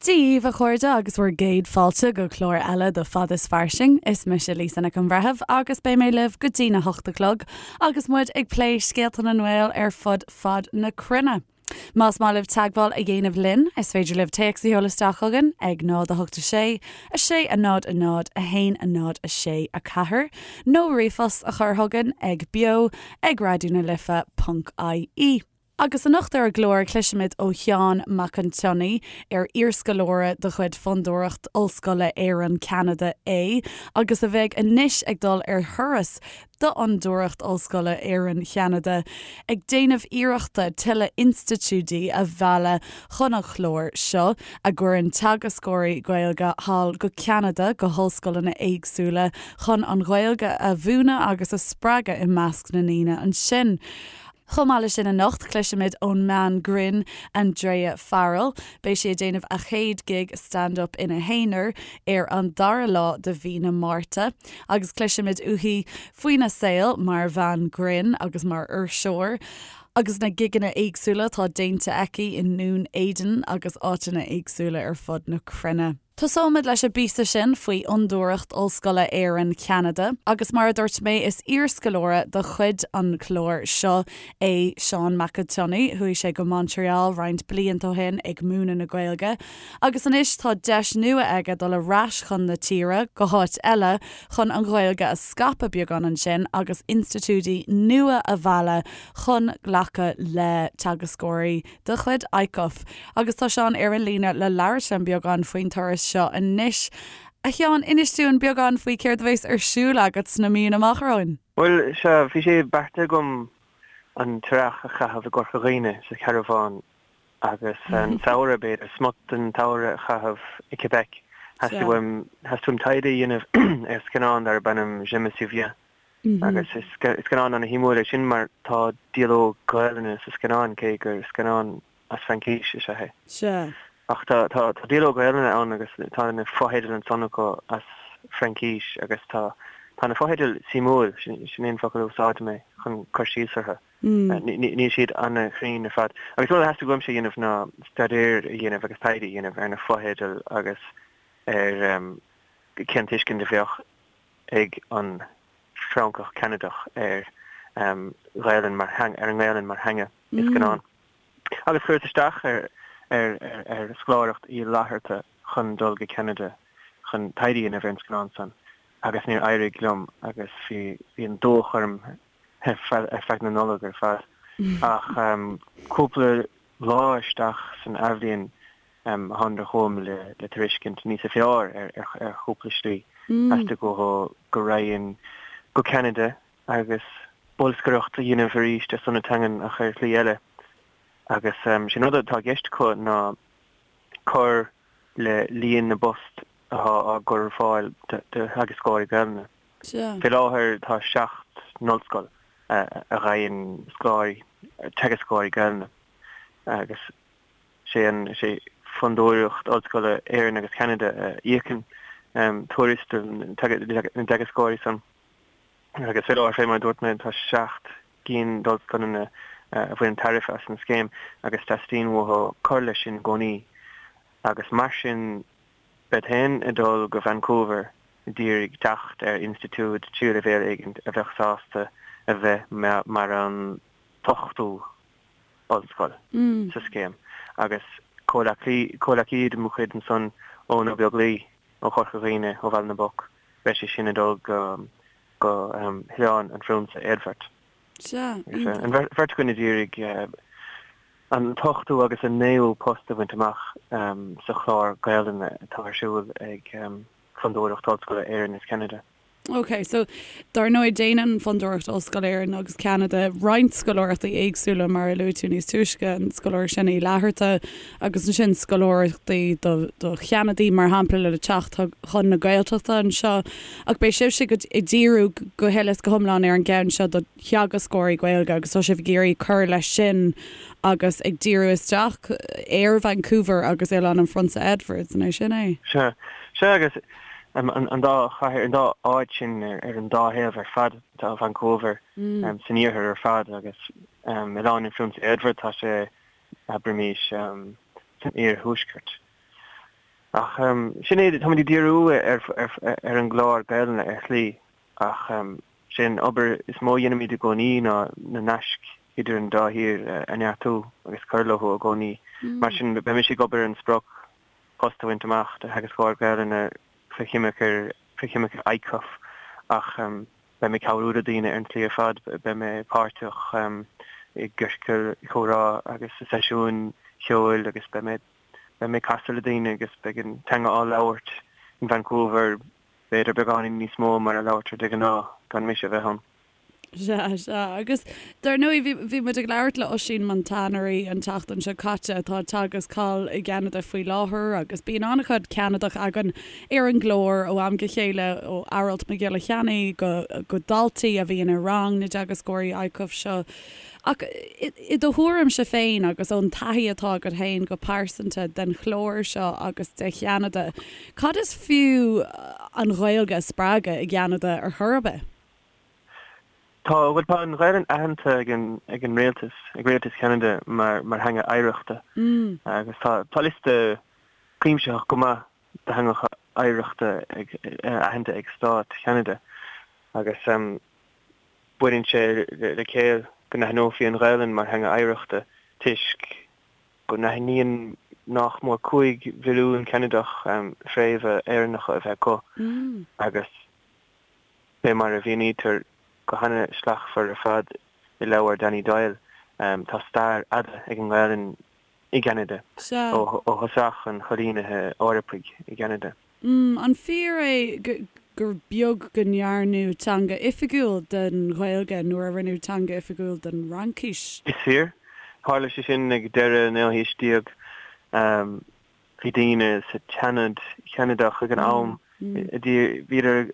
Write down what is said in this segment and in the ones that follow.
Dia dhaoibh a chairde agus bhur gcéad fáilte go clár eile de Fad is Fairsing. Is mise Lisa Nic an Bhreithimh agus beidh mé libh go dtí na hocht a chlog agus muid ag plé scéalta na nGael ar fud fad na cruinne. Más maith libh teagmháil a dhéanamh linn, is féidir libh téacs a sheoladh isteach chugainn ag 0 8 6 6 0 0 1 0 6 4 nó ríomhphost a chur chugainn ag beo ag raidió na life ponc ie. Agus anocht ar an gclár cloisfimid ó Sheán Mac an tSionnaigh, ar iarscoláire de chuid Fondúireacht Ollscoile Éireann-Ceanada é agus a bheidh anois ag dul ar thuras d'Fhondúireacht Ollscoile Éireann-Cheanada ag déanamh iarrachta tuilleadh institiúidí a mhealladh chun an chláir seo, a gcuireann teagascóirí Gaeilge thall go Ceanada go hollscoileanna éagsúla chun an Ghaeilge a mhúineadh agus a spreagadh i measc na ndaoine ansin. Chomh maith leis sin anocht, cloisfimid ón mbean grinn Andrea Farrell. Beidh sí ag déanamh a chéad gig stand up ina haonar ar an dara lá de mhí na Márta agus cloisfimid uaithi faoina saol mar bhean grinn agus mar fhuirseoir agus na gigeanna éagsúla atá déanta aici i nDún Éideann agus áiteanna éagsúla ar fud na cruinne. Tosóimid leis an bpíosa sin faoi Fhondúireacht Ollscoile Éireann Cheanada agus mar a dúirt mé is iarscoláire de chuid an chláir seo é Seán Mac an tSionnaigh. Chuaigh sé go Montreal roinnt blianta ó shin ag múineadh na Gaeilge agus anois tá deis nua aige dul ar ais chun na tíre, go háit eile, chun an Ghaeilge a scaipeadh beagán ansin agus institiúidí nua a mhealladh chun glacadh le teagascóirí de chuid ICUF. Agus tá Seán ar an líne le labhairt linn beagán faoin turas seo anois. A Sheáin, inis dúinn beagán faoi céard a bheas ar siúl agat sna míonna amach romhainn. Bhuel, sea, bhí sé beartaithe agam an t-earrach a chaitheamh i gCorca Dhuibhne, sa charbhán, agus an samhradh, b'fhéidir, smut den tsamhradh a chaitheamh i Québec. Theastaigh uaim, theastaigh uaim taighde a dhéanamh ar scannán darb ainm Je me souviens. Agus is scannán ana-shuimiúil é sin mar tá dialóg Gaelainne sa scannán, cé gur scannán as Fraincís is ea é. Sea. Ach tá tá dialóg Gaelainne ann agus tá na fotheidil ansan acu as Fraincís agus tá tá na fotheidil suimiúil, sin é an focal a úsáidfidh mé chun cur síos orthu. Níl siad ana-chruinn ar fad. Agus rud a theastaigh uaimse a dhéanamh ná staidéar a dhéanamh agus taighde a dhéanamh ar na fotheidil agus ar cén tuiscint a bheadh ag an Francach Ceanadach ar Ghaelainn mar ar an nGaelainn mar theanga i scannán. Agus chuireas isteach ar ar ar scoláireacht Uí Fhlatharta chun dul go Ceanada chun taighde a dhéanamh ar an scannán san agus níor éirigh liom agus bhí bhí an dóch orm ar feadh na Nollag ar fad. Ach cúpla lá isteach san athbhliain Thánadar chugam le tairiscint níosa fearr ar chúpla slí. Theastaigh uathu go raghainn go Ceanada agus bolscaireacht a dhéanamh arís ar son na teangan ach ar shlí eile. Agus sé an rud atá i gceist acu ná cur le líon na bpost atá á gcur ar fáil do theagascóirí Gaelainne. Fé láthair tá 7 n-ollscoil a fhaigheann scoláirí, teagascóirí Gaelainne agus Sé an, sé Fondúireacht Ollscoile Éireann agus Ceanada a íocann tuarastal na dteagascóirí san. Agus fé láthair, fé mar a dúirt mé, tá 7 gcinn d'ollscoileanna a bhaineann tairbhe as an scéim agus teastaíonn uathu cur leis sin i gcónaí. Agus mar sin, bead féin ag dul go Vancouver d'iarraidh teacht ar institiúid tríú leibhéal éigin a bheadh sásta a bheith mar an t-ochtú ollscoil sa scéim agus comhleacaí de mo chuid ansan Eoin Ó Beaglaoi ó Chorca Dhuibhne, ó Bhaile na bPoc, beidh sé sin ag dul go go hOileán an Phriúnsa Éadbhard. Sea, iontach. An bheirt againn ag iarraidh an t-ochtú agus an naoú post a bhaint amach sa chlár Gaelainne atá ar siúl ag Fondúireacht Ollscoile Éireann is Ceanada. Ok, so dar ndóigh déanann Fondúireacht Ollscoile Éireann agus Ceanada roinnt scoláireachtaí éagsúla mar a luaigh tú níos túisce, an scoláireacht sin Uí Fhlatharta agus ansin scoláireachtaí do do Cheanadaigh mar shampla le teacht chun na Gaeltachta anseo. Ach beidh sibhse ag díriú go huile is go hiomlán ar an gceann seo do theagascóirí Gaeilge agus tá sibh ag iarraidh cur leis sin agus ag díriú isteach ar Vancouver agus Oileán an Phrionsa Edward, an é sin é? Sea, sea agus an dá chathair, an dá áit sin ar an dá thaobh ar fad, tá Vancouver san iarthar ar fad agus Oileán an Phrionsa Edward, tá sé, abraimís, san iarthuaisceart. Ach sin é, táimid ag díriú ar an gclár Gaelainne ar shlí ach sé an obair is mó a dhéanaimid i gcónaí ná na naisc idir an dá thír a neartú agus cur leo i gcónaí. Mar sin, beidh mise ag obair ar an sprioc post a bhaint amach do theagascóir Gaelainne faoi choimirce faoi choimirce ICUF ach beidh mé ag cabhrú le daoine ar an tslí ar fad, beidh mé páirteach i gciorcail chomhrá agus i seisiúin cheoil agus beidh mé Beidh mé ag casadh le daoine agus beidh an teanga á labhairt in Vancouver, b'fhéidir beagáinín níos mó mar a labhartar de ghnáth gan mise a bheith ann. Sea, sea. Agus dar ndóigh, bhí, bhí muid ag labhairt le Oisín Montanari an tseachtain seo caite atá ag teagasc thall i gCeanada faoi láthair agus bíonn an-chuid Ceanadach againn ar an gclár ó am go chéile, ó Aralt Mac Giolla Cheannaigh go, go daltaí a bhíonn i rang na dteagascóirí ICUF seo. Ach i do thuairimse féin agus ón taithí atá agat féin go pearsanta den chlár seo agus de Cheanada, cad is fiú an Ghaeilge a spreagadh i gCeanada ar chor ar bith? Tá, bhuel tá an Ghaelainn aitheanta ag an ag an rialtas, ag rialtas Cheanada mar mar theanga oidhreachta agus tá tá liosta cuimsitheach go maith de theangacha oidhreachta ag aitheanta ag stát Cheanada agus Baineann sé le céill go n-aithneofaí an Ghaelainn mar theanga oidhreachta toisc go n-aithníonn nach mór 5 mhilliún Ceanadach fréamha Éireannacha a bheith acu agus fé mar a mhínítear go hana-shlachtmhar ar fad i leabhar Danny Doyle, tá stair fhada ag an nGaelainn i gCeanada, ó thosach an choilínithe Eorpaigh i gCeanada. An fíor é gur beag go ndearnadh teanga oifigiúil den Ghaeilge nuair a rinneadh teanga oifigiúil den Fhraincis? Is fíor. Tharla sé sin ag deireadh an naoú haois déag. Bhí daoine sa tSeanad Cheanadach ag an am, bhíodar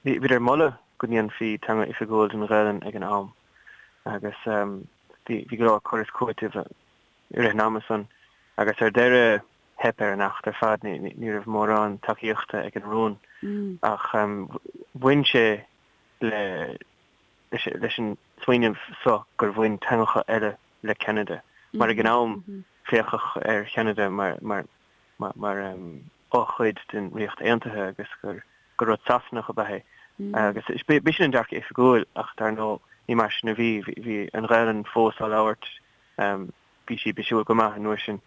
ag moladh go ndéanfaí teanga oifigiúil den Ghaelainn ag an am agus bhí go leor cur is cúiteamh i rith an ama san agus ar deireadh theip ar an acht ar fad, ní raibh mórán tacaíochta ag an rún ach bhain sé le leis an smaoineamh so gur bhain teangacha eile le Ceanada mar ag an am féachadh ar Cheanada mar mar mar fhochuid den Ríocht Aontaithe agus gur gur rud Sasanach ab ea é agus b'shin an dearcadh oifigiúil ach dar ndóigh ní mar sin a bhí, bhí an Ghaelainn fós á labhairt Bhí sí bisiúil go maith an uair sin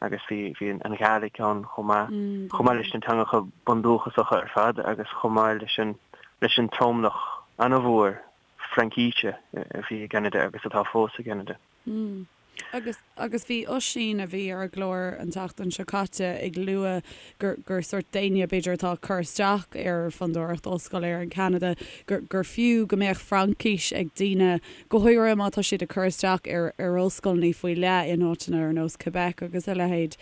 agus bhí bhí an Ghàidhlig ann chomh maith, chomh maith leis na teangacha bundúchasacha ar fad agus chomh maith leis an leis an tromlach an-mhór Fraincíse a bhí i gCeanada agus atá fós i gCeanada. Agus agus bhí Oisín, a bhí ar an gclár an tseachtain seo caite, ag lua gur gur sórt d'éinne b'fhéidir atá ag cur isteach ar Fondúireacht Ollscoile Éireann Ceanada gur gur fiú go mbeadh Fraincis ag daoine go háirithe má tá siad ag cur isteach ar ar ollscoileanna faoi leith in áiteanna ar nós Quebec agus a leithéid.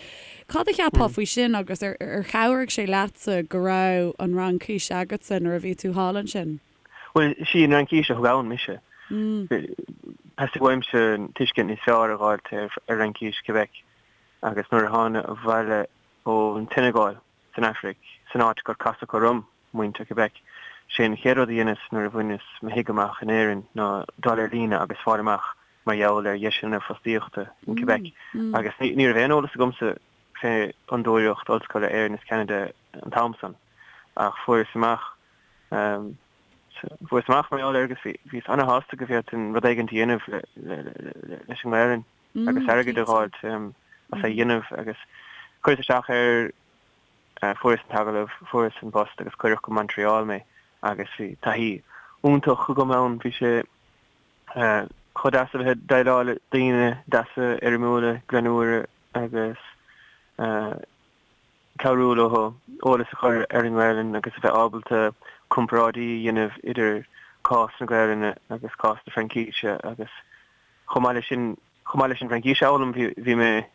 Cad a cheapfá faoi sin agus ar ar chabhraigh sé leatsa go raibh an Fhraincis agatsa nuair a bhí tú thall ansin? Bhuel, sí an Fhraincis a thug ann mise. Theastaigh uaimse tuiscint níos fearr a dh'fháilt ar Fhraincis Quebec agus nuair a thána abhaile ón tSeineagáil san Afraic, san áit gur casadh orm muintir Quebec, sé an chéad rud a dheineas nuair a bhaineas mo thigh amach in Éirinn ná dul ar líne agus fáil amach mar gheall ar dheiseanna fostaíochta in Quebec agus ní raibh aon eolas agamsa fé Fhondúireacht Ollscoile Éireann is Ceanada an t-am san ach fuaireas amach fuaireas amach mar gheall air agus bhíos ana-shásta go bhféadfainn rud éigin a dhéanamh leis an nGaelainn. agus airgead a dh'fháilt as é a dhéanamh agus chuireas isteach air, fuaireas an t-agallamh, fuaireas an post agus cuireadh go Montreal mé agus bhí taithí iontach agam ann, bhí sé chomh deas a bheith ag déileáil le daoine deasa, éirimiúla, greannmhara agus cabhrú leo eolas a chur ar an nGaelainn agus a bheith ábalta comparáidí a dhéanamh idir cás na Gaelainne agus cás na Fraincíse agus chomh maith leis sin, chomh maith leis an bhFraincis a fhoghlaim, bhí, bhí mé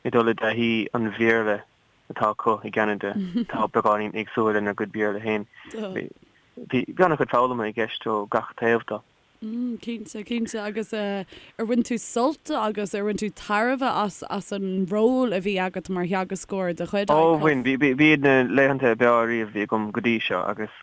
ag dul i dtaithí an Bhéarla atá acu i gCeanada, atá beagáinín éagsúil lenár gcuid Béarla féin. Bhí, bhí an-chuid foghlama i gceist ó gach taobh de. Cinnte, cinnte. Agus ar bhain tú sult agus ar bhain tú tairbhe as, as an ról a bhí agat mar theagascóir de chuid Ó, bhain. Bhí, b'iad na laethanta ab fhearr riamh a bhí agam go dtí seo agus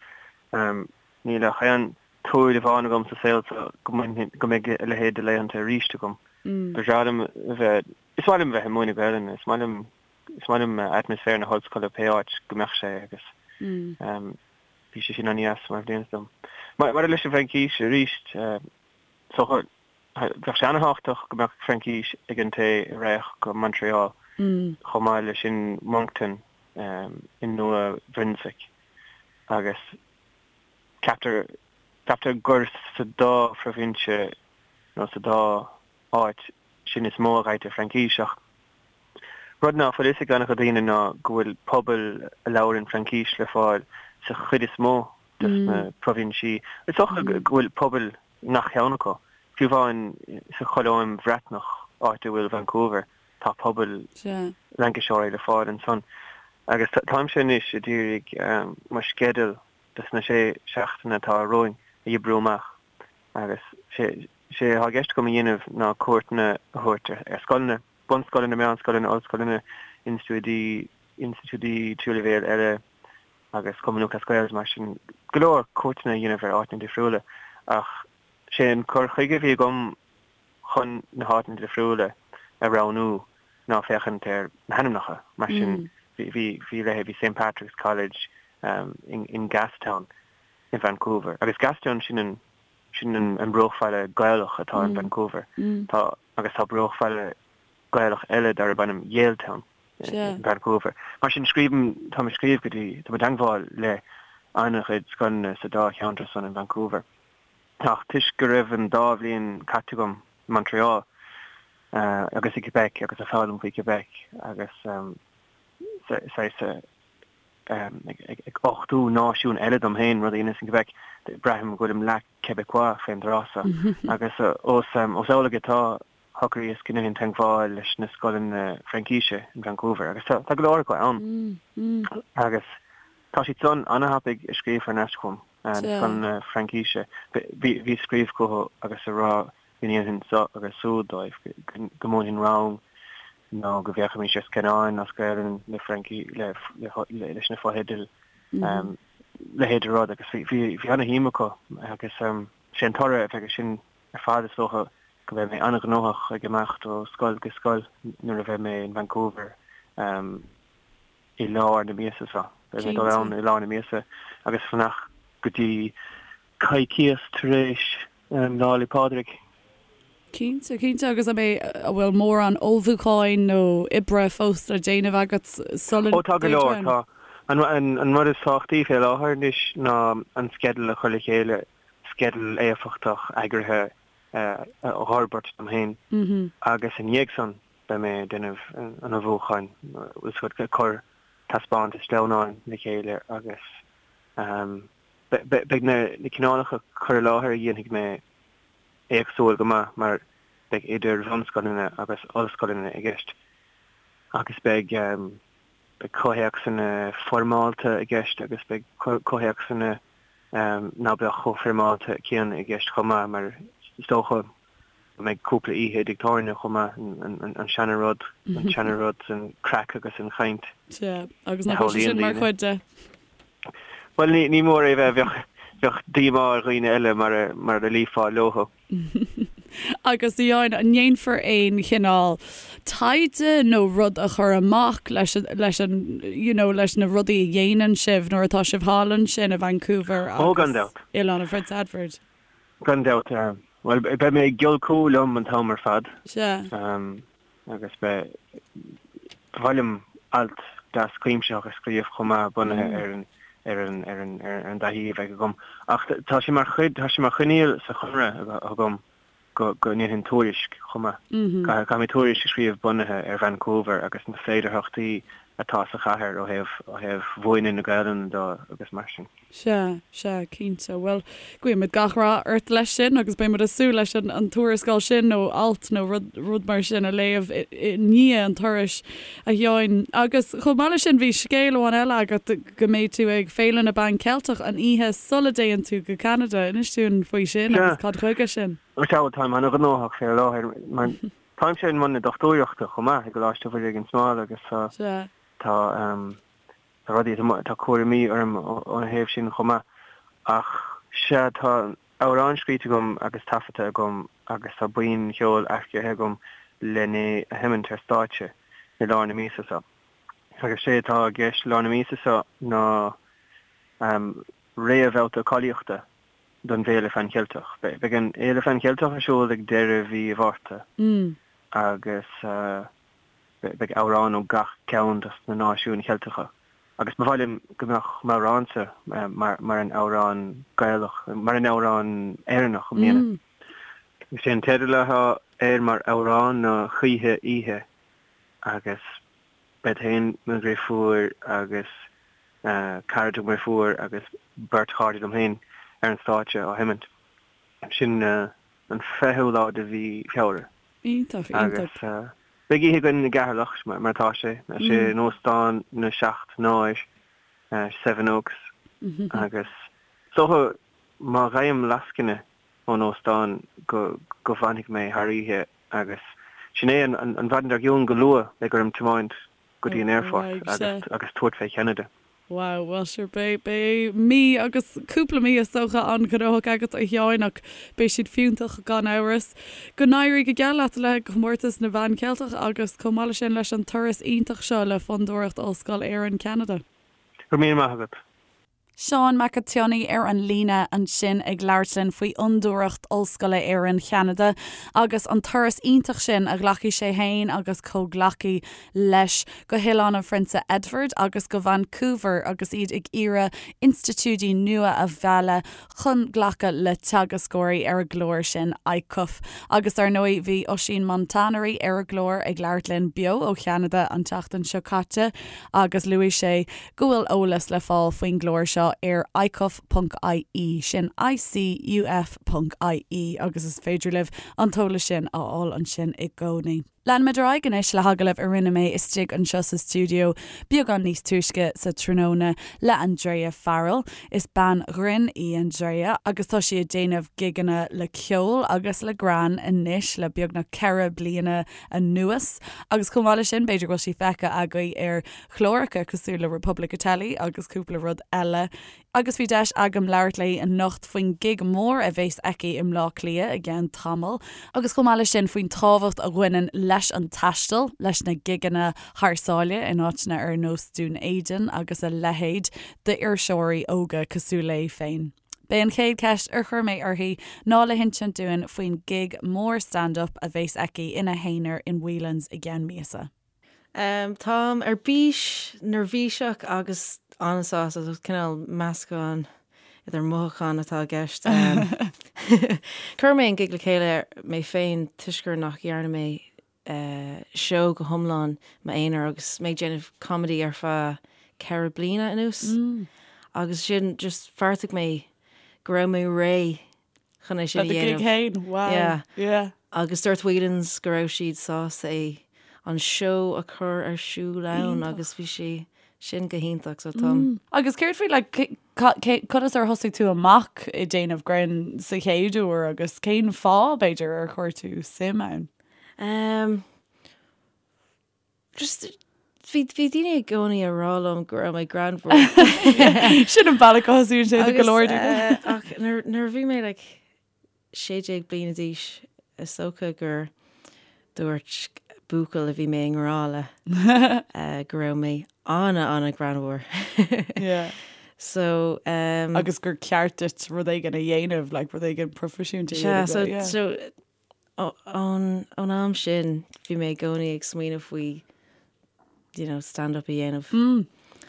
níl ach aon tsúil amháin agam sa saol seo go mbainfidh, go mbeidh a leithéid de laethanta arís agam. Ba bhreá liom a bheith, is maith liom a bheith ag múineadh Gaelainne, is maith liom. Is maith liom atmaisféar na hollscoile pé áit go mbeadh sé agus bhí sé sin an-deas mar bhliain dom. Maidir leis an bhFraincís arís, is dócha, bheadh sé an-thábhachtach go mbeadh Fraincis ag an té a raghadh go Montreal, chomh maith leis sin Moncton i Nua Bhruinswick agus ceaptar ceaptar gur sa dá phroibhinse nó sa dá áit sin is mó a ghairtear Fraincis ach rud ná fuil fhios ag an-chuid daoine ná go bhfuil pobail a labhrann Fraincis le fáil sa chuid is mó des na proibhinsí. Is dócha go bhfuil pobail i ngach ceann acu. Fiú amháin sa Cholóim Bhreatnach, áit a bhfuil Vancouver, tá pobail Fhrainciseoirí le fáil ansan. Agus táimse anois a d'iarraidh mo sceideal dos na sé seachtaine atá romhainn a oibriú amach. Agus sé atá i gceist agam a dhéanamh ná cuairteanna a thabhairt ar scoileanna, bunscoileanna, meánscoileanna, ollscoileanna, institiúidí, institiúidí tríú leibhéal eile agus Cumann Lúthchleas Gael agus mar sin, go leor cuairteanna a dhéanamh ar áiteanna difriúla. Ach sé an cur chuige a bhí agam chun na háiteanna difriúla a roghnú ná féachaint ar na hainmneacha. Mar sin bhí, bhí, bhí leithéidí St Patrick's College in Gastown, i Vancouver. Agus Gastown, sin an, sin an bruachbhaile Gaelach atá in Vancouver. Tá, agus tá bruachbhaile Gaelach eile darb ainm Yaletown in Vancouver. Mar sin, scríobhaim, táim ag scríobh go dtí, táim i dteangmháil le an-chuid scoileanna sa dá cheantar san in Vancouver. Ach toisc go raibh an dá bhliain caite agam i Montreal agus i Quebec agus ag foghlaim faoi Quebec agus saghas ag uchtú náisiún eile dom féin, rud a dheineas in Quebec, braithim go bhfuilim leath Quebecois fén dtráth so. Agus ós amhlaidh atá, shocraíos go ndéanfainn teagmháil leis na scoileanna Fraincíse in Vancouver, agus tá go leor acu ann. Agus tá siad san ana-thapaidh ag scríobh thar n-ais chugam, na scoileanna Fraincíse. Bhíos ag scríobh chucu agus ag rá go ndéanfainn seo agus siúd dóibh, go múinfinn rang nó go bhféachfaimis ar scannáin as Gaelainn le Fraincis, leis na fotheidil, leithéid de rud agus bhí ana-shuim acu agus sé an toradh a bheidh air sin ar fad is dócha go mbeidh mé an-ghnóthach ag imeacht ó scoil go scoil nuair a bheidh mé in Vancouver. i lár na míosa seo. Beidh mé ag dul ann i lár na míosa agus fanacht go dtí coicíos tar éis Lá 'le Pádraig. Cinnte, cinnte. Agus an mbeidh, an bhfuil mórán ullmhúcháin nó oibre fós le déanamh agat sula Ó tá go leor, tá. An rud is tábhachtaí fé láthair anois ná an sceideal a chur le chéile, sceideal éifeachtach eagraithe a fhorbairt dom féin agus i ndiaidh san, Beidh mé ag déanamh an ullmhúcháin, bhfuil 's agat, ag cur taispeántas sleamhnáin le chéile agus beidh na cineálacha cur i láthair a dhéanfaidh mé éagsúil go maith mar beidh idir bhunscoileanna agus ollscoileanna i gceist agus beidh beidh comhthéacsanna foirmeálta i gceist agus beidh comhthéacsanna ná beadh chomh foirmeálta céanna i gceist chomh maith mar is dócha go mbeidh cúpla oíche i dtigh tábhairne chomh maith, an seana rud, an seana rud, an craic agus an chaint. Sea, agus nach bhfuil sé sin mar chuid de? Bhuel, ní mór é a bheith, bheadh, bheadh díomá ar dhaoine eile mara, mara luífeá leothu. Agus a Sheáin, an ndéanfar aon chineál taighde nó rud a chur amach leis, leis an, you know, leis na rudaí a dhéanann sibh nuair atá sibh thall ansin i Vancouver agus Ó, gan dabht. Oileán an Phrionsa Edward? Gan dabht. Bhuel, beidh mé ag giolcú liom an t-am ar fad. Sea. Agus beidh, ba mhaith liom alt deas cuimsitheach a scríobh chomh maith bunaithe ar an, ar an, ar an, ar an dtaithí a bheidh agam. Ach tá sé mar chuid, tá sé mar choinníoll sa chonradh agam go, go ndéanfainn tuairisc chomh maith. Caithfidh, caithfidh mé tuairisc a scríobh bunaithe ar Vancouver agus na féidearthachtaí atá sa chathair ó thaobh, ó thaobh mhúineadh na Gaelainne de agus mar sin. Sea, sea, cinnte. Bhuel, guímid gach rath ort leis sin agus beidh muid ag súil leis an tuarascáil sin nó alt nó rud, rud mar sin a léamh i ndiaidh an turais, a Sheáin. Agus chomh maith leis sin, bhí scéal amháin eile agat go mbeidh tú ag Féile na bPan Ceilteach an oíche sula dtéann tú go Ceanada. Inis dúinn faoi sin Sea. agus cad chuige sin. Sea, bhuel, táim an-ghnóthach fé láthair mar táimse i mbun na dochtúireachta chomh maith i gColáiste Mhuire gan Smál agus tá, Sea. tá, Tá rudaí, tá cúraimí orm óna thaobh sin chomh maith. Ach sea, tá amhrán scríte agam agus taifeadta agam agus tá buíon cheoil earcaithe agam len é a sheimint ar stáitse i lár na míosa seo. Agus sé atá i gceist lár na míosa seo ná réamhbhabhta cáilíochta don bhFéile Phan Cheilteach. Beidh an Fhéile Phan Cheilteach ar siúl ag deireadh mhí Mhárta agus beidh amhrán ó gach ceann dos na náisiúin Cheilteacha agus ba mhaith liom go mbeadh m'amhránsa mar an amhrán Gaelach, mar an amhrán Éireannach i mbliana. Is é an teideal atá air mar amhrán ná Choíche Oíche agus bead féin, mo dhriofúr agus cara de mo dhriofúr agus beirt chairde liom féin ar an stáitse á sheimint. Sin an 20ú lá de mhí Feabhra. Iontach, iontach. Agus beidh oíche againn i gCeatharlach, mar atá sé. Sé in Óstán na Seacht nÁir, Sevenoaks, agus is dócha má gheibhim lascaine ón óstán go go bhfanfaidh mé thar oíche agus sin é an an mhaidin dár gcionn go luath beidh orm tiomáint go dtí an aerfort agus agus tabhairt fé Cheanada. Wow, bhuel sure beidh beidh mí agus cúpla mí is dócha an-ghnóthach agat a Sheáin ach beidh siad fiúntach gan amhras. Go n-éirí go geal leat le Comórtas na bPan Cheilteach agus chomh maith leis sin leis an turas iontach seo le Fondúireacht Ollscoil Éireann Ceanada. Go raibh míle maith agat. Seán Mac an tSionnaigh ar an líne ansin ag labhairt linn faoi Fhondúireacht Ollscoile Éireann Cheanada agus an turas iontach sin a ghlacfaidh sé féin agus comhghleacaí leis go hOileán an Phrionsa Edward agus go Vancouver agus iad ag iarraidh institiúidí nua a mhealladh chun glacadh le teagascóirí ar an gclár sin ICUF. Agus dar ndóigh bhí Oisín Montanari ar an gclár ag labhairt linn beo ó Cheanada an tseachtain seo caite agus luaigh sé go bhfuil eolas le fáil faoin gclár seo ar icuf.ie, sin ICUF.ie, agus is féidir libh an t-eolas sin a fháil ansin i gcónaí. Leanfaimid ar aghaidh anois le hagallamh a rinne mé istigh anseo sa stiúideo beagán níos túisce sa tráthnóna le Andrea Farrell. Is bean ghrinn í Andrea agus tá sí ag déanamh gigeanna le ceol agus le greann anois le beagnach 4 bliana anuas agus chomh maith leis sin b'fhéidir go bhfuil sí feicthe agaibh ar chláracha cosúil le Republic of Telly agus cúpla rud eile. Agus bhí deis agam labhairt léi anocht faoin gig mór a bhéas aici i mBleá Cliath i gceann tamaill, agus chomh maith leis sin faoin tábhacht a bhaineann leis an taisteal, leis na gigeanna thar sáile in áiteanna ar nós Dún Éideann agus a leithéid, d'iriseoirí óga cosúil léi féin. B'é an chéad cheist ar chuir mé uirthi ná le hinsint dúinn faoin gig mór stand-up a bhéas aici ina haonar in Whelan's i gceann míosa. Táim ar bís, neirbhíseach agus an-sásta, so cineál meascán idir mothúcháin atá i gceist. Chuir mé an gig le chéile mé féin toisc gur nach dhearna mé seó go hiomlán m'aonar agus mé ag déanamh comedy ar feadh 4 bliana anuas agus sin just bheartaigh mé go raibh mé réidh chun é sin a Le do gig dhéanamh. féin, wow. Yeah. Yeah. Agus dúirt Whelan's go raibh siad sásta é an seó a chur ar siúl ann Iontach. agus bhí sé sin go hiontach so táim. Agus céard faoi like cé- ca- cé- conas ar thosaigh tú amach ag déanamh grinn sa chéad uair agus cén fáth b'fhéidir ar chuir tú suim ann? Um, Just, bhí, bhí daoine i gcónaí ag rá liom go raibh mé greannmhar. Sin an bealach a thosaíonn sé do go leor daoine. Eh, ach nuair, nuair a bhí mé like 16 bliana d'aois, is dócha gur dúirt buachaill a bhí mé i ngrá le eh, go raibh mé ana, ana greannmhar. Yeah. So, um, Agus gur ceart duit rud éigin a dhéanamh, like rud éigin proifisiúnta a Sea, dhéanamh, so, yeah. so Ón am sin bhí mé i gcónaí ag smaoineamh faoi you know, stand up a dhéanamh. Mm.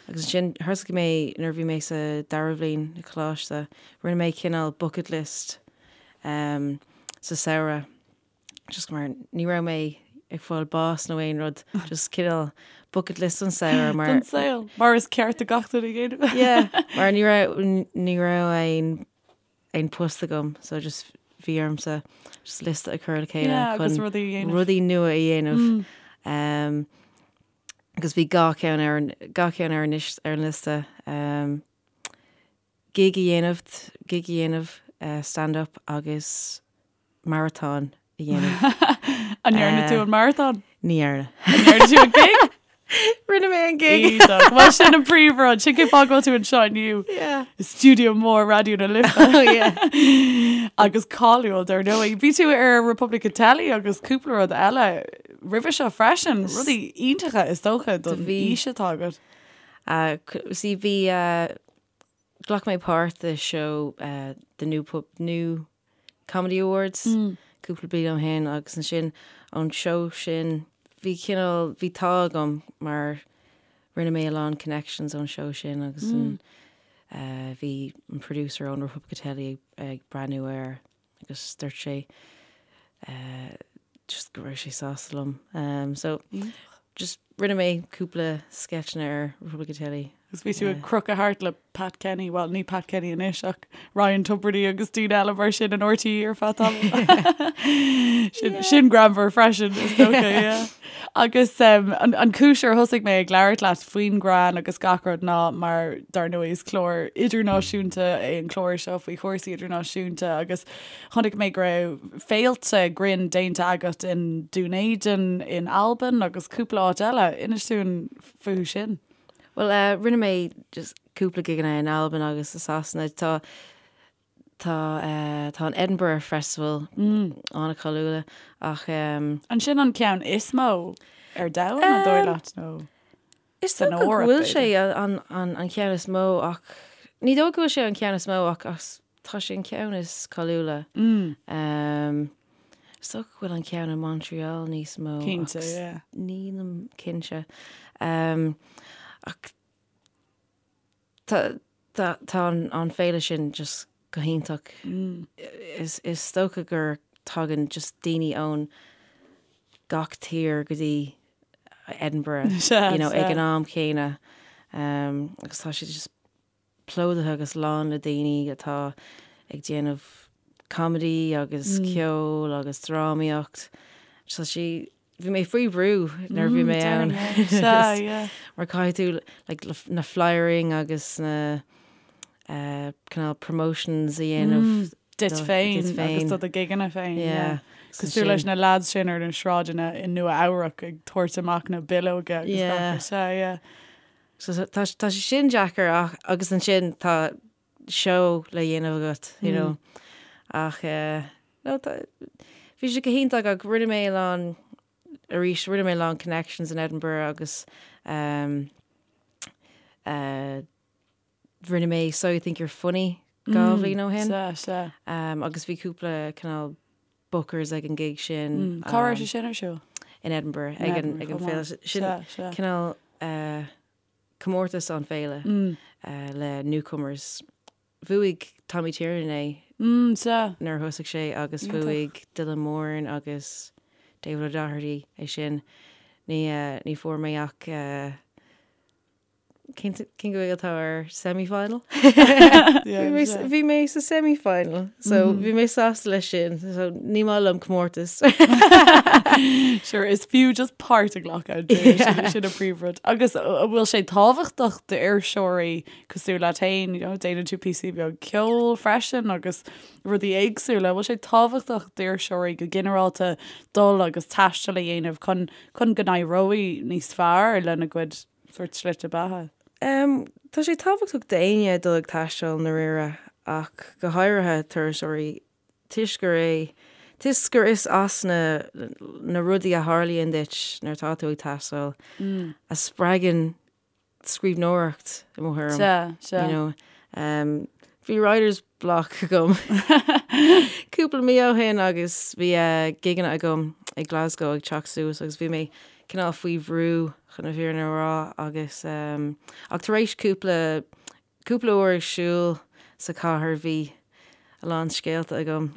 Agus ansin thosaigh mé nuair a bhí mé sa dara bhliain i coláiste, rinne mé cineál bucket list um, sa samhradh. Just mar ní raibh mé ag fáil bás nó aon rud, just cineál bucket list don samhradh mar Don saol, mar is ceart do gach duine a dhéanamh. Yeah, mar ní raibh ní raibh aon aon post agam so just bhí ormsa just liosta a chur le chéile Yeah, agus chun rudaí a dhéanamh. rudaí nua a dhéanamh. Um, agus bhí gach ceann ar an gach ceann ar an lis- ar an liosta um, gig a dhéanamh gig a dhéanamh uh, stand up agus maratón a dhéanamh. An ndearna tú an maratón? Ní dhearna. An ndearna tú an gig? Rinne mé an gig. Iontach. Bhuel sin an príomhrud. Sin cén fáth go bhfuil tú anseo inniu. Yeah. I stiúideo mór Raidió na Life. Oh yeah. Agus cáiliúil dar ndóigh. Bhí tú ar Republic of Telly agus cúpla rud eile. roimhe seo freisin, rudaí iontacha is dócha don aois atá agat. See bhí, ghlac mé páirt i seó The New Pub, New Comedy Awards cúpla bliain ó shin agus ansin ón seó sin bhí cineál, bhí an t-ádh agam mar rinne mé a lán connections ón seó sin agus an bhí an producer ón Repubblica Telly ag breathnú air agus dúirt sé just go raibh sé sásta liom. So just rinne mé cúpla sceitseanna ar Repubblica Telly. Agus bhí tú ag crochadh thart le Pat Kenny, bhuel ní Pat Kenny anois ach Ryan Tubridy agus daoine eile mar sin in RTÉ ar feadh tamaill. Sin, sin greannmhar freisin is dócha, yeah. Agus um, an, an cúis ar thosaigh mé ag labhairt leat faoin greann agus gach rud ná mar dar ndóigh is clár idirnáisiúnta é an clár seo faoi chúrsaí idirnáisiúnta agus chonaic mé go raibh féilte grinn déanta agat in Dún Éideann, in Albain agus cúpla áit eile. Inis dúinn fúthu sin. Bhuel, rinne mé just cúpla gigeanna in Albain agus i Sasana. Tá tá tá an Edinburgh Festival an-cháiliúil ach. An sin an ceann is mó ar domhan, an dóigh leat, nó Is dócha go bhfuil sé an an ceann is mó ach ní dóigh go bhfuil sé an ceann is mó ach tá sé an ceann is cáiliúla. Is dócha go bhfuil an ceann i Montreal níos mó. Cinnte, yeah. Nílim cinnte. Ach tá tá an féile sin just go hiontach. Is is dócha gur tagann just daoine ón gach tír go dtí Edinburgh, you know, ag an am céanna. Agus tá sé just plódaithe agus lán le daoine atá ag déanamh comedy agus ceol agus drámaíocht. Tá sé, bhí mé faoi bhrú nuair a bhí mé ann. Mar caithfidh tú like na flyering agus na cineál promotions a dhéanamh duit féin agus do do gigeanna féin. Yeah. Cosúil leis na lads sin ar na sráideanna i Nua Eabhrac ag tabhairt amach na bileoga agus gach rud. Yeah. So tá tá sé sin deacair ach agus ansin tá seó le dhéanamh agat, you know. Ach eh, no, tá, bhí sé go hiontach ach rinne mé a lán, arís, rinne mé a lán connections in Edinburgh agus um, eh, rinne mé So You Think You're Funny 2 bhliain ó shin. Sea, sea. Um, agus bhí cúpla cineál bookers ag an gig sin. Cá raibh sé sin ar siúl? In Edinburgh, ag an ag an féile. Sin cineál comórtas an féile le newcomers. Bhuaigh Tommy Tiernan é nuair a thosaigh sé agus bhuaigh Dylan Moran agus David O'Doherty é sin. Ní ní fuair mé ach Cén Ghaeilge atá ar semi-final? Bhí mé sa semi-final, so bhí mé sásta leis sin, so ní maith liom comórtas. Sure, is fiú just páirt a ghlacadh, sin an príomhrud. Agus an bhfuil sé tábhachtach d'fhuirseoirí cosúil leat féin, you know, déanann tú píosaí beag ceoil freisin agus rudaí éagsúla, an bhfuil sé tábhachtach d'fhuirseoirí go ginearálta dul agus taisteal a dhéanamh chun chun go n-éireoidh níos fearr lena gcuid sórt slite beatha. Tá sé tábhachtach d'éinne dul ag taisteal i ndáiríre ach go háirithe turasóirí toisc gur é toisc gur is as na na rudaí a tharlaíonn duit nuair atá tú ag taisteal a spreagann scríbhneoireacht i mo thuairim. Sea, sea. You know, bhí writer's block agam cúpla mí ó shin agus bhí gigeanna agam i Glasgow ag teacht suas agus bhí mé cineál faoi bhrú chun na fírinne a rá agus ach tar éis cúpla cúpla uair ag siúl sa chathair bhí a lán scéalta agam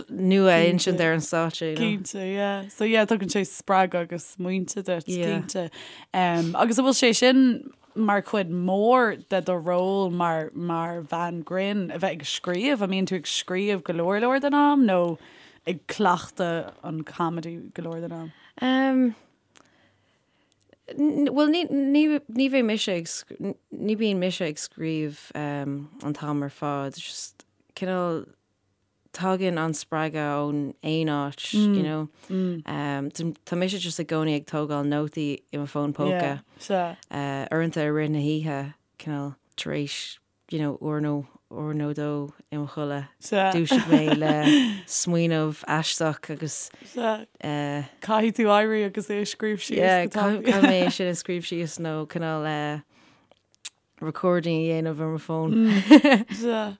nua a insint ar an stáitse, you know. Cinnte, yeah. So yeah, tugann sé spreagadh agus smaointe duit, Yeah. cinnte. Um, agus an bhfuil sé sin mar chuid mhór de do ról mar mar bhean grinn a bheith ag scríobh? An mbíonn tú ag scríobh go leor leor den am nó ag cleachtadh an comedy go leor den am? Um, Bhuel, ní, ní, ní bheidh mise ag, ní bíonn mise ag scríobh um, an t-am ar fad. Just cineál tagann an spreagadh ón aon áit, you know. Um, tá mise just i gcónaí ag tógáil nótaí i mo fón póca. Yeah, sea. Uh, uaireanta i rith na hoíche, cineál tar éis. you know, uair nó uair nó dó i mo chodladh, dúiseoidh mé le smaoineamh aisteach agus eh. Caithfidh tú éirí agus é a scríobh síos Yeah, go tapaidh. caithfidh mé é sin a scríobh síos nó cineál eh recording a dhéanamh ar mo fón. Sea.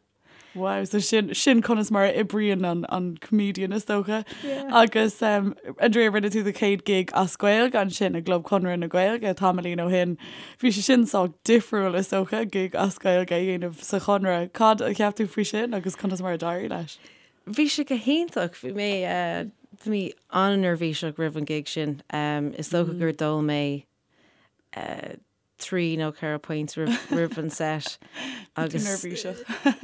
Wow, so sin, sin conas mar a oibríonn an, an comedian is dócha. Yeah. Agus um, Andrea, rinne tú do chéad gig as Gaeilge ansin i gClub Chonradh na Gaeilge tamaillín ó shin. Bhí sé sin sách difriúil is dócha, gig as Gaeilge a dhéanamh sa Chonradh. Cad a cheap tú faoi sin agus conas mar a d'éirigh leis? Bhí sé go hiontach. Bhí mé, uh, bhí mé an-neirbhíseach roimh an gig sin. Um, is dócha gur d'ól mé uh, 3 nó 4 pint roimh an set agus neirbhíseach.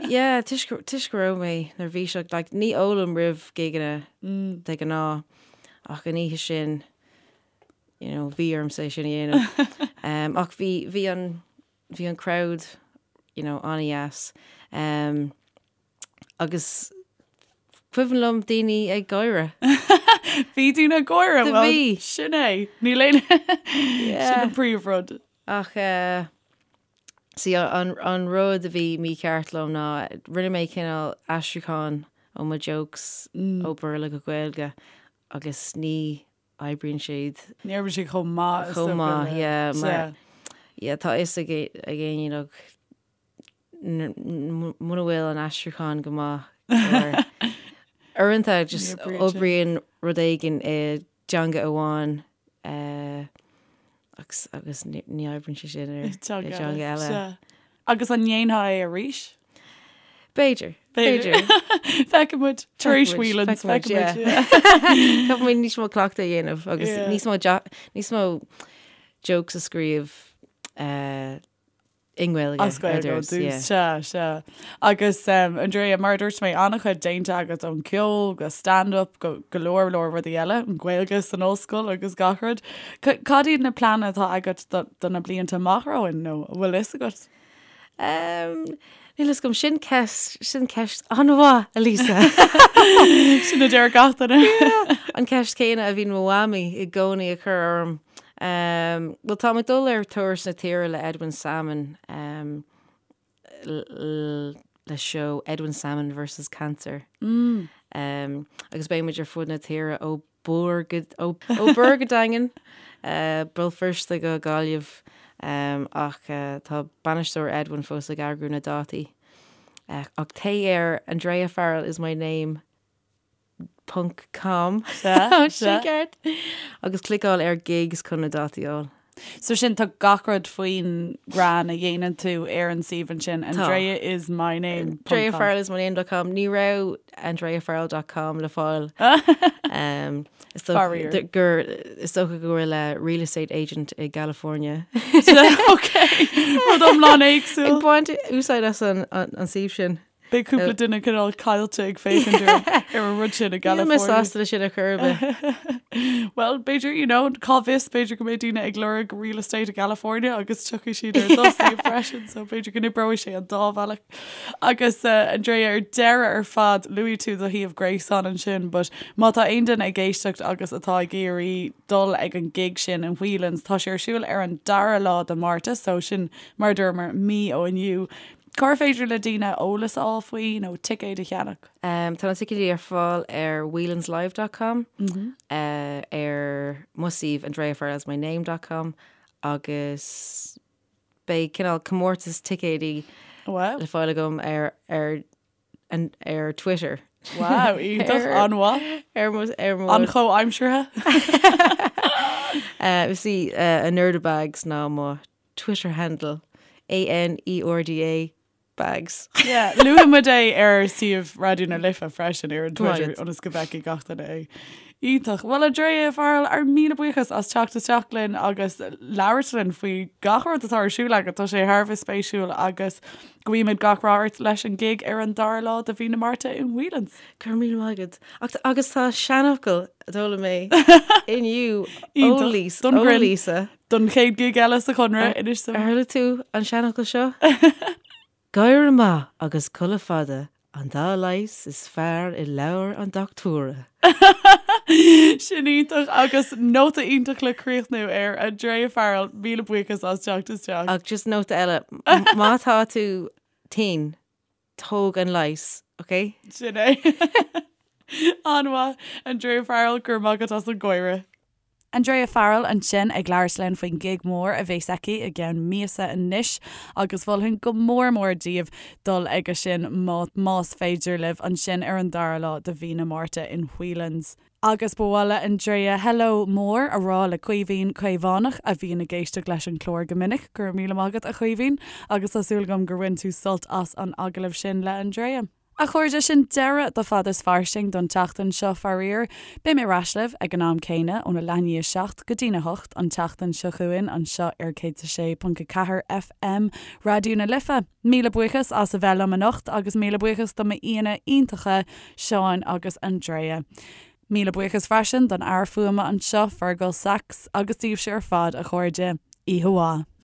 Yeah, toisc toisc go raibh mé neirbhíseach, like ní ólaim roimh gigeanna de ghnáth ach an oíche sin you know bhí ormsa é sin a dhéanamh. Um, ach bhí bhí an bhí an crowd you know an-dheas. Um, Agus cuimhin liom daoine ag gáire. Bhí daoine ag gáire, well, bhí. Sin é. Níl aon Sin an príomhrud. Ach eh, see, an, an rud a bhí mícheart liom ná rinne mé cineál aistriúchán ó mo jokes mm. ó Béarla go Gaeilge agus ní oibríonn siad. Ní oibríonn siad chomh maith. Chomh maith, yeah. Mar, yeah, tá fhios ag éinne like, muna bhfuil an aistriúchán go maith or uaireanta just oibríonn rud éigin i dteanga amháin eh, agus agus ní ní oibríonn sé sin ar i teanga eile. Sea. Agus an ndéanfá é arís? B'fhéidir. B'fhéidir. Feicfidh muid tar éis Whelan's. Feicfidh muid, yeah. Caithfidh muid níos mó cleachtadh a dhéanamh agus níos mó níos mó jokes a scríobh eh, i nGaeilge As Gaeilge ó dtús, sea, sea. Agus Andrea, mar a dúirt mé, an-chuid déanta agat ón ceol go stand-up go go leor leor rudaí eile, an Ghaeilge san ollscoil agus gach rud. Cad iad na pleananna atá agat do do na blianta amach romhainn nó an bhfuil fhios agat? Níl fhios agam, sin ceist, sin ceist an-mhaith, a Lisa. Sin a deir gach duine. An ceist céanna a bhíonn mo mhamaí i gcónaí ag cur orm. Bhuel, táim ag dul ar turas na tíre le Edwin Salmon le seó Edwin Salmon versus Cancer. Agus beidh muid ar fud na tíre ó Bhur go ó Bhur go Daingean, Béal Feirste go Gaillimh ach tá bainisteoir Edwin fós ag eagrú na dátaí. Ach téigh ar Andrea Farrell is my name ponc com Sin ceart. Agus cliceáil ar gigs chun na dátaí a fháil. So sin tá gach rud faoin greann a dhéanann tú ar an suíomh ansin Andrea is my name. AndreaFarrellismyname dot com Ní raibh AndreaFarrell dot com le fáil. Um, is dócha gur is dócha go bhfuil a real estate agent i gCalifornia. Ok, rud iomlán éagsúil. Ag baint úsáid as an an suíomh sin. Beidh cúpla duine cineál caillte ag féachaint ar an rud sin i gCalifornia. Níl mé sásta leis sin ar chor ar bith. Well, b'fhéidir, you know, cá bhfios, b'fhéidir go mbeidh daoine ag lorg real estate i gCalifornia agus tiocfaidh siad ar do shuíomh freisin, so b'fhéidir go n-oibreoidh sé an dá bhealach. Agus uh, Andrea, ar deireadh ar fad, luaigh tú do shuíomh gréasáin ansin, but má tá aon duine ag éisteacht agus atá ag iarraidh dul ag an gig sin in Whelan's, tá sé ar siúl ar an dara lá de Márta, so sin mar a dúramar mí ó inniu. Cár féidir le daoine eolas a fháil faoi nó ticéid a cheannach? Tá na ticéidí ar fáil ar whelanslive dot com, ar mo suíomh andreafarrellismyname dot com agus beidh cineál comórtas ticéidí le fáil agam ar ar ar Twitter. Wow, iontach, an-mhaith. Ar mo ar mo An-chomhaimseartha. Is í Anerda Bags ná mo Twitter handle, A-N-E-R-D-A Bags. Yeah, luafaidh muid é ar suíomh Raidió na Life freisin ar an Twitter ionas go bhfeicfidh gach duine é. Iontach. Bhuel Andrea Farrell, ár míle buíochas as teacht isteach linn agus labhairt linn faoi gach rud atá ar siúl agat. Tá sé thar a bheith spéisiúil agus guímid gach rath ort leis an gig ar an dara lá de mhí na Márta in Whelan's. Go raibh míle maith agat. Ach agus tá seanfhocal a d'fhoghlaim mé inniu ó Lisa. Don chéad gig eile sa Chonradh, inis dom. Ar chuala tú an seanfhocal seo? Gáire maith agus codladh fada an dá leigheas is fearr i leabhar an dochtúra. Sin iontach agus nóta iontach le críochnú air. Andrea Farrell, míle buíochas as teacht isteach. Ach just nóta eile, má tá tú. tinn, tóg an leigheas, ok? Sin é. An-mhaith, Andrea Farrell, go raibh maith agat as an gcomhairle. Andrea Farrell ansin ag labhairt linn faoin gig mór a bheas aici i gceann míosa anois agus mholfainn go mór mór daoibh dul aige sin más féidir libh ansin ar an dara lá de mhí na Márta in Whelan's. Agus ba mhaith le Andrea hello mór a rá le Caoimhín Caomhánach a bhíonn ag éisteacht leis an chlár go minic. Go raibh míle maith agat a Chaoimhín agus tá súil agam gur bhain tú sult as an agallamh sin le Andrea. A chairde, sin deireadh do Fad is Fairsing don tseachtain seo, faraor. Beidh mé ar ais libh ag an am céanna, óna leath i ndiaidh 7 go dtína 8 an tseachtain seo chugainn anseo ar 106.4 FM Raidió na Life. Míle buíochas as a bheith liom anocht agus míle buíochas do m'aíonna iontacha, Seán agus Andrea. Míle buíochas freisin don fhear fuaime anseo, Fergal Sachs, agus daoibhse ar fad, a chairde. Oíche mhaith.